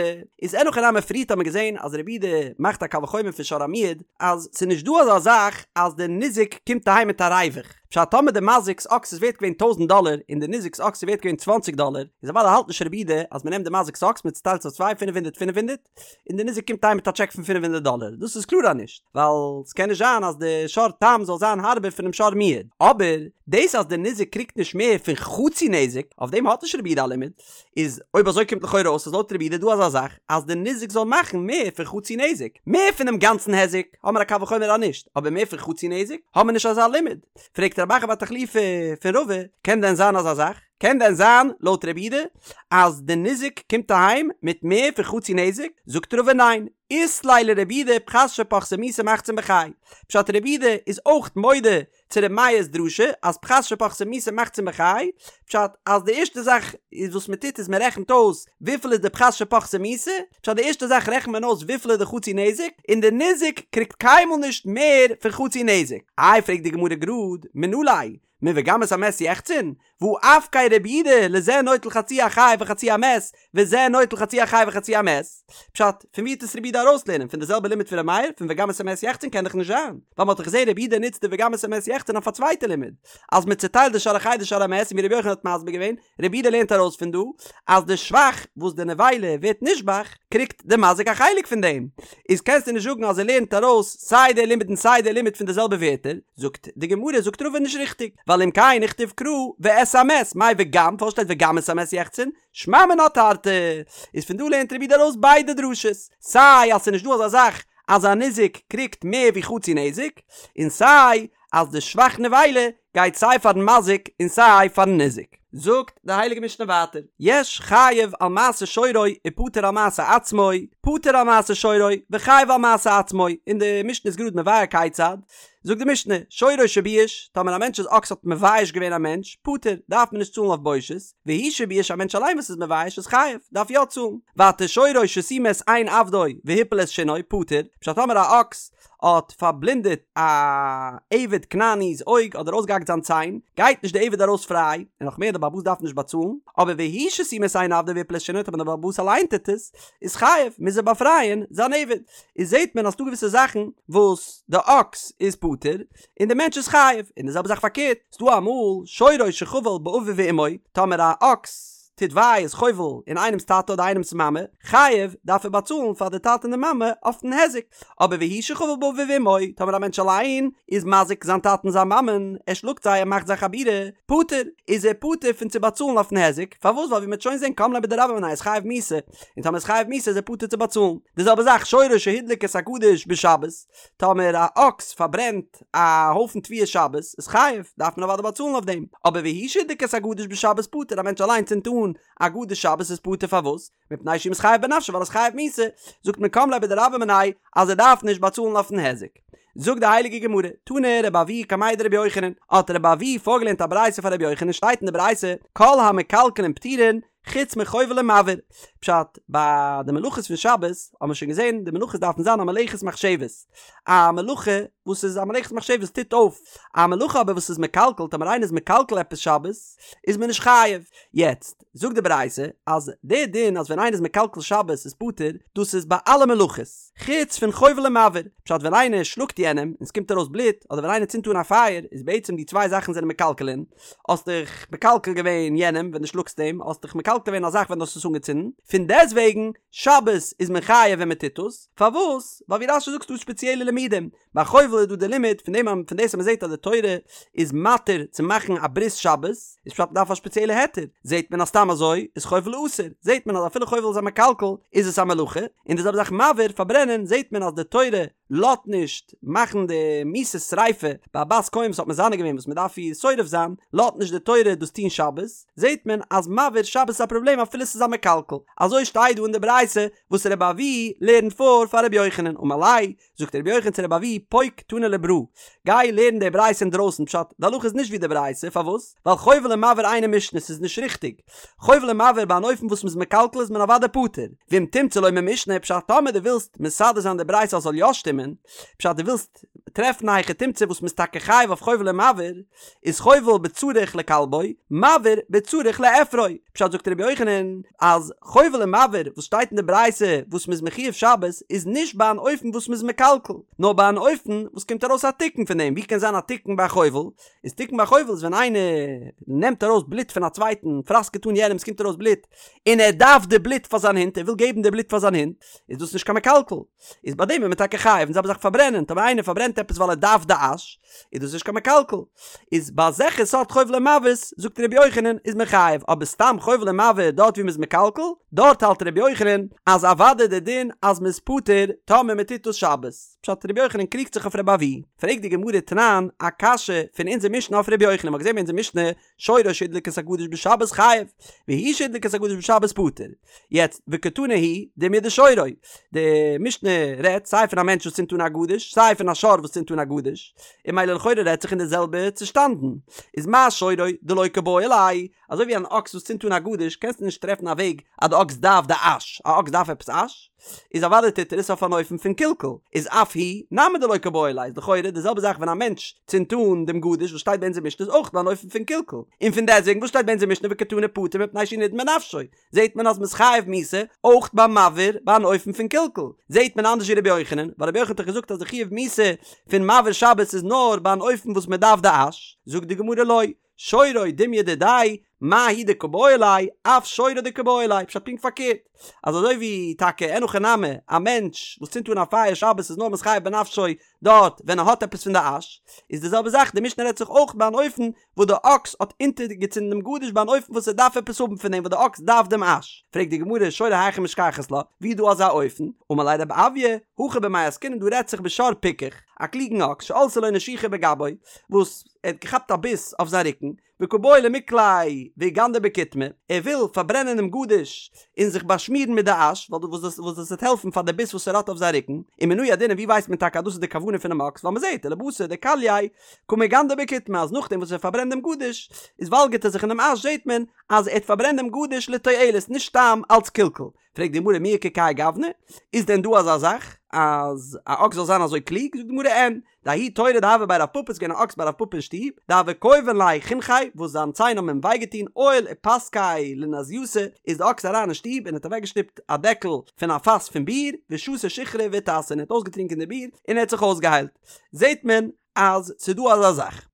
איז אין הכי נמי פריערט האט מען געזען אז רבי יהודה מאכט א קל וחומר פון שור המועד אז ס'איז נישט דא אזא זאך אז די ניזק קומט אהיים מיט א ריווח, פשט טאמער די מזיק'ס אקס איז ווערט געווען טויזנט דאלער און די ניזק'ס אקס איז ווערט געווען צוואנציג דאלער איז אוודאי האלט נישט רבי יהודה אז מ'נעמט די מזיק'ס אקס מ'צוטיילט עס אויף צוויי פינף הונדערט פינף הונדערט, און די ניזק קומט אהיים מיט א טשעק פון פינף הונדערט דאלער, דאס איז קלאר אז נישט, ווייל ס'קען נישט זיין אז די שור תם זאל זיין הארבער פונעם שור מועד, אבער דאס אז די ניזק קריגט נישט מער פון חצי נזק, אויף דעם האט נישט רבי יהודה א לימוד, איז אויב אזוי קומט לכאורה אויס אז לויט רבי יהודה איז דא אזא זאך אז די ניזק זאל מאכן מער פון חצי נזק, מער פונעם גאנצן היזק האמער א קל וחומר אז נישט, אבער מער פון חצי נזק האמער נישט אזא לימוד, פרעגט רב אחא בר תחליפא פון רבא, קען דען זיין אזא זאך? קען דען זיין, לויט רבי יהודה, אז די ניזק קומט אהיים מיט מער פון חצי נזק? זאגט רבא ניין, אית ליה לרבי יהודה פחת שפחתה מיתה מחצין בחי. פשט רבי יהודה איז אויך מודה צו רבי מאיר'ס דרשה אז פחת שפחתה מיתה מחצין בחי, פשט אז די ערשטע זאך איז וואס מען טוט איז מען רעכנט אויס וויפיל איז די פחת שפחתה מיתה, פשט די ערשטע זאך רעכנט מען אויס וויפיל איז די חצי נזק, און די ניזק קריגט קיינמאל נישט מער פון חצי נזק. איי פרעגט די גמרא גראד, מנא ליה, מוגם את המת יחצון, והא אפקיה רבי יהודה לזה נוטל חצי החי וחצי המת, וזה נוטל חצי החי וחצי המת. פשט, פון ווי וועט עס רבי יהודה ארויסלערנען? פון די זעלבע לימוד פון ר' מאיר? פון וגם את המת יחצון קען דאך נישט זיין, ווייל מ'האט דאך געזען רבי יהודה נוצט די וגם את המת יחצון אויף א צווייטע לימוד, אז מ'צעטיילט די שור החי די שור המת, און ווי רבי יוחנן האט מסביר געווען, רבי יהודה לערנט ארויס פון דא אז די שבח וואס די נבילה ווערט נשבח קריגט די מזיק א חלק פון דעם, איז קענסטו נישט זאגן אז ער לערנט ארויס סיי די לימוד און סיי די לימוד פון די זעלבע ווערטער, זאגט די גמרא זאגט רבא נישט ריכטיג, ווייל אם כן נכתוב קרא ואת המת, מאי וגם, פארוואס שטייט וגם את המת יחצון? שמע מינה תרתי, איז פון דא לערנט רבי יהודה ארויס ביידע דרשות, סיי אז ס'איז נישט דא אזא זאך אז א ניזק קריגט מער ווי חצי נזק, און סיי אז די שבח נבילה גייט סיי פארן מזיק און סיי פארן ניזק. זאגט די הייליגע משנה ווייטער, יש חייב על מעשה שורו ופטור על מעשה עצמו, פטור על מעשה שורו וחייב על מעשה עצמו, און די משנה איז גראד מבאר כיצד. זאגט די משנה, שורו שבייש, טאמער א מענטש'ס אקס האט מבייש געווען א מענטש, פטור, דארף מען נישט צאלן אויף בושת, והוא שבייש א מענטש אליין וואס איז מבייש איז חייב, דארף יא צאלן. ווייטער שורו שסימא את עין עבדו והפיל את שינו, פטור, פשט טאמער א אקס האט פארבלינדעט א עבד כנעני'ס אויג אדער אויסגעהאקט זיין ציין, גייט נישט די עבד ארויס פריי, און נאך מער די בעל הבית דארף נישט באצאלן, אבער והוא שסימא את עין עבדו והפיל את שינו טאמער די בעל הבית אליין טוט עס, איז חייב, מוז ער באפרייען זיין עבד. איז זעט מען אז ס'דא געוויסע זאכן וואס די אקס איז פטור און די מענטש איז חייב, און די זעלבע זאך פארקערט, ס'דא אמאל שורו שחבל באביו ואמו, טאמער א אקס טוט וויי איז חובל אין איינעמס טאטע אדער איינעמס מאמע, חייב, דארף ער באצאלן פאר די טאטע און די מאמע אויפן היזק, אבער והוא שחבל באביו ואמו, טאמער א מענטש אליין איז מזיק זיין טאטע און זיין מאמען, ער שלאגט זיי ער מאכט זיי חבורה, פטור, איז ער פטור פון צו באצאלן אויפן היזק, פארוואס ווייל ווי מ'וועט שוין זען קם ליה בדרבה מיניה איז חייב מיתה, און טאמער איז חייב מיתה איז ער פטור צו באצאלן. די זעלבע זאך שורו שהדליק את הגדיש בשבת, טאמער א אקס פארברענט א הויפן תבואה שבת איז חייב, דארף מען אוודאי באצאלן אויף דעם, אבער והוא שהדליק את הגדיש בשבת פטור, א מענטש אליין צינדט אן א גדיש שבת איז פטור פארוואס? מפני שהוא מתחייב בנפשו ווייל ער איז חייב מיתה, זאגט מען קם ליה בדרבה מיניה אז ער דארף נישט באצאלן אויפן היזק. זאגט די הייליגע גמרא, תנא רבי אבהו קמיה דרבי יוחנן, האט רבי אבהו פארגעלערנט א ברייתא פאר רבי יוחנן שטייט אין די ברייתא כל המקלקלין פטורין חוץ מחובל ומבעיר. פשט, ביי די מלאכות פון שבת האבן מיר שוין געזען די מלאכות דארפן זיין א מלאכת מחשבת, א מלאכה וואס איז א מלאכת מחשבת טוט אויף, א מלאכה אבער וואס איז מקלקל, טאמער איינער איז מקלקל עפעס שבת איז מען נישט חייב. יעצט זאגט די ברייתא אז די דין אז ווען איינער איז מקלקל שבת איז פטור, דאס איז ביי אלע מלאכות, חוץ פון חובל ומבעיר, פשט ווען איינער שלאגט יענעם און ס'קומט ארויס בלוט, אדער ווען איינער צינדט אן א פייער, איז בעצם די צוויי זאכן זענען מקלקלין, האסט דיך מקלקל געווען יענעם ווען דו שלאגסט אים, האסט דיך מקלקל געווען א זאך ווען דו האסט עס אנגעצינדן, פון דעסטוועגן שבת איז מען חייב ווען מען טוט עס, פארוואס? ווייל ווי רש"י זאגט ס'דא ספעציעלע לימודים, ביי חובל איז דא די לימוד פון דעם פון דאס אז מען זעט אז די תורה איז מתיר צו מאכן א ברית שבת, איז פשט מ'דארף א ספעציעלע היתר, זעט מען אז סתם אזוי איז חובל אסור, זעט מען אז אפילו חובל איז א מקלקל איז עס א מלאכה, און די זעלבע זאך מבעיר, פארברענען, זעט מען אז די תורה לאזט נישט מאכן די מיתת שריפה ביי א בת כהן וואס האט מזנה געווען וואס מען דארף איר שורף זיין, לאזט נישט די תורה דאס טון שבת, זעט מען אז מבעיר שבת איז א פראבלעם אפילו ס'איז א מקלקל, אזוי שטייט דא אין די ברייתא וואס רבי אבהו לערנט פאר פאר רבי יוחנן, אמר ליה, זאגט רבי יוחנן צו רבי אבהו פוק תני לברא, גיי לערן די ברייתא אינדרויסן, פשט, די הלכה איז נישט ווי די ברייתא, פארוואס? ווייל חובל ומבעיר אינה משנה, ס'איז נישט ריכטיג, חובל ומבעיר ביי אן אופן וואס מ'איז מקלקל איז מען אוודאי פטור, ואם תמצא לומר משנה, פשט טאמער דו ווילסט מסדר זיין די ברייתא אז ס'זאל יא שטימען, פשט דו ווילסט טרעפן א היכי תמצא וואס מ'איז טאקע חייב אויף חובל ומבעיר, איז חובל בצריך לכלבו, מבעיר בצריך לאפרו, פשט זאגט רבי יוחנן אז חובל ומבעיר וואס שטייט אין די ברייתא וואס מ'איז מחויב שבת איז נישט ביי אן אופן וואס מ'איז מקלקל, נאר ביי אן אופן וואס קומט ארויס א תיקון פון דעם, ווי קען זיין א תיקון ביי א חובל? איז תיקון ביי חובל איז ווען איינער נעמט ארויס בלוט פון א צווייטן, פראסקעט אן יענעם, עס קומט ארויס בלוט, און ער דארף די בלוט פאר זיין הונט, ער וויל געבן די בלוט פאר זיין הונט, איז דאס נישט קיין מקלקל, איז ביי דעם איז מען טאקע חייב, און זעלבע זאך פארברענען, טאמער איינער פארברענט עפעס ווייל ער דארף די אש, איז דאס נישט קיין מקלקל, איז ביי אזעלכע סארט חובל ומבעיר'ס, זאגט ר' יוחנן, איז מען חייב, אבער סתם חובל ומבעיר דארט ווי מען איז מקלקל, דארט האלט ר' יוחנן אז אוודאי די דין אז מען איז פטור טאמער מען טוט דאס שבת. פשט רבי יוחנן קריגט זיך אויף רבי אבהו, פרעגט די גמרא תנן א קשיא פון אונזער משנה אויף רבי יוחנן, מ'האט געזען ביי אונזער משנה שורו שהדליק את הגדיש בשבת חייב, והוא שהדליק את הגדיש בשבת פטור, יעצט וקתני הוא דומיא דשורו, די משנה רעדט סיי פון א מענטש וואס צינדט אן א גדיש, סיי פון א שור וואס צינדט אן א גדיש, און ממילא לכאורה רעדט זיך אין די זעלבע צושטאנדן, איז מה שורו דלא קבעי ליה, אזוי ווי אן אקס וואס צינדט אן א גדיש קענסטו נישט טרעפן א וועג אז די אקס דארף די אש, א אקס דארף עפעס אש? איז אוודאי טוט ער עס אויף אן אופן פון קלקול, איז אף הוא נמי דלא קבעי ליה, איז לכאורה די זעלבע זאך ווען א מענטש צינדט אן דעם גדיש וואס שטייט ביי אונזער משנה איז אויך ביי אן אופן פון קלקול, און פון דעסטוועגן וואס שטייט ביי אונזער משנה וקתני פטור מפני שהוא נידון בנפשו, זעט מען אז מ'איז חייב מיתה אויך ביי מבעיר ביי אן אופן פון קלקול, זעט מען אנדערש ווי רבי יוחנן, ווייל רבי יוחנן האט דאך געזאגט אז די חיוב מיתה פון מבעיר שבת איז נאר ביי אן אופן וואס מ'דארף די אש, זאגט די גמרא לא, שורו דומיא דידיה, מה הוא דקבעי ליה, אף שורו דקבעי ליה, פשט פונקט פארקערט, אז אזוי ווי טאקע אין הכי נמי, א מענטש וואס צינדט אן א פייער שבת איז נאר מתחייב בנפשו דארט ווען ער האט עפעס פון די אש, איז די זעלבע זאך די משנה רעדט זיך אויך ביי אן אופן וואס די אקס האט אונטערגעצינדן דעם גדיש ביי אן אופן וואס ער דארף עפעס האבן פון דעם וואס די אקס דארף דעם אש, פרעגט די גמרא שורו היכי משכחת לה, ווי איז דא אזא אופן? אמר ליה רב אויא, הכא במאי עסקינן דא רעדט זיך בשור פיקח, א קלוגן אקס שעלתה לו נשיכה בגבו, וואס ער האט געכאפט א ביס אויף זיין רוקן, וקא בעי למיקליה ואיגנדר בקיטמא, ער וויל פארברענען דעם גדיש און זיך באשמירן מיט די אש, ווייל וואס דאס וואס דאס וועט העלפן פאר די ביס וואס ער האט אויף זיין רוקן, ומנא ידעינן ווי ווייסט מען טאקע אז דאס איז די כוונה פונעם אקס, ווייל מען זעט ולבתר דכלייה קא מיגנדר בקיטמא אז נאכדעם וואס ער פארברענט דעם גדיש איז וואלגערט ער זיך אינעם אש זעט מען אז ער האט פארברענט דעם גדיש לתועלת נישט סתם אלץ קלקול. פרעגט די גמרא מי איכא כהאי גוונא, איז דען דא אזא זאך אז א אקס זאל זיין אזוי קלוג? זאגט די גמרא אין, דההוא תורא דהוה בי רב פפא איז געווען א אקס ביי רב פפא אין שטוב, דהוו כייבן ליה חינכיה וואס זיין ציין האבן אים וויי געטון עייל ופסקיה לנזייתא, איז די אקס אריין אין שטוב און האט אוועקגעשטופט א דעקל פון א פאס פון ביר, ושתי שיכרא ואיתסי און ער האט אויסגעטרינקען די ביר און ער האט זיך אויסגעהיילט. זעט מען אז ס'איז דא אזא זאך.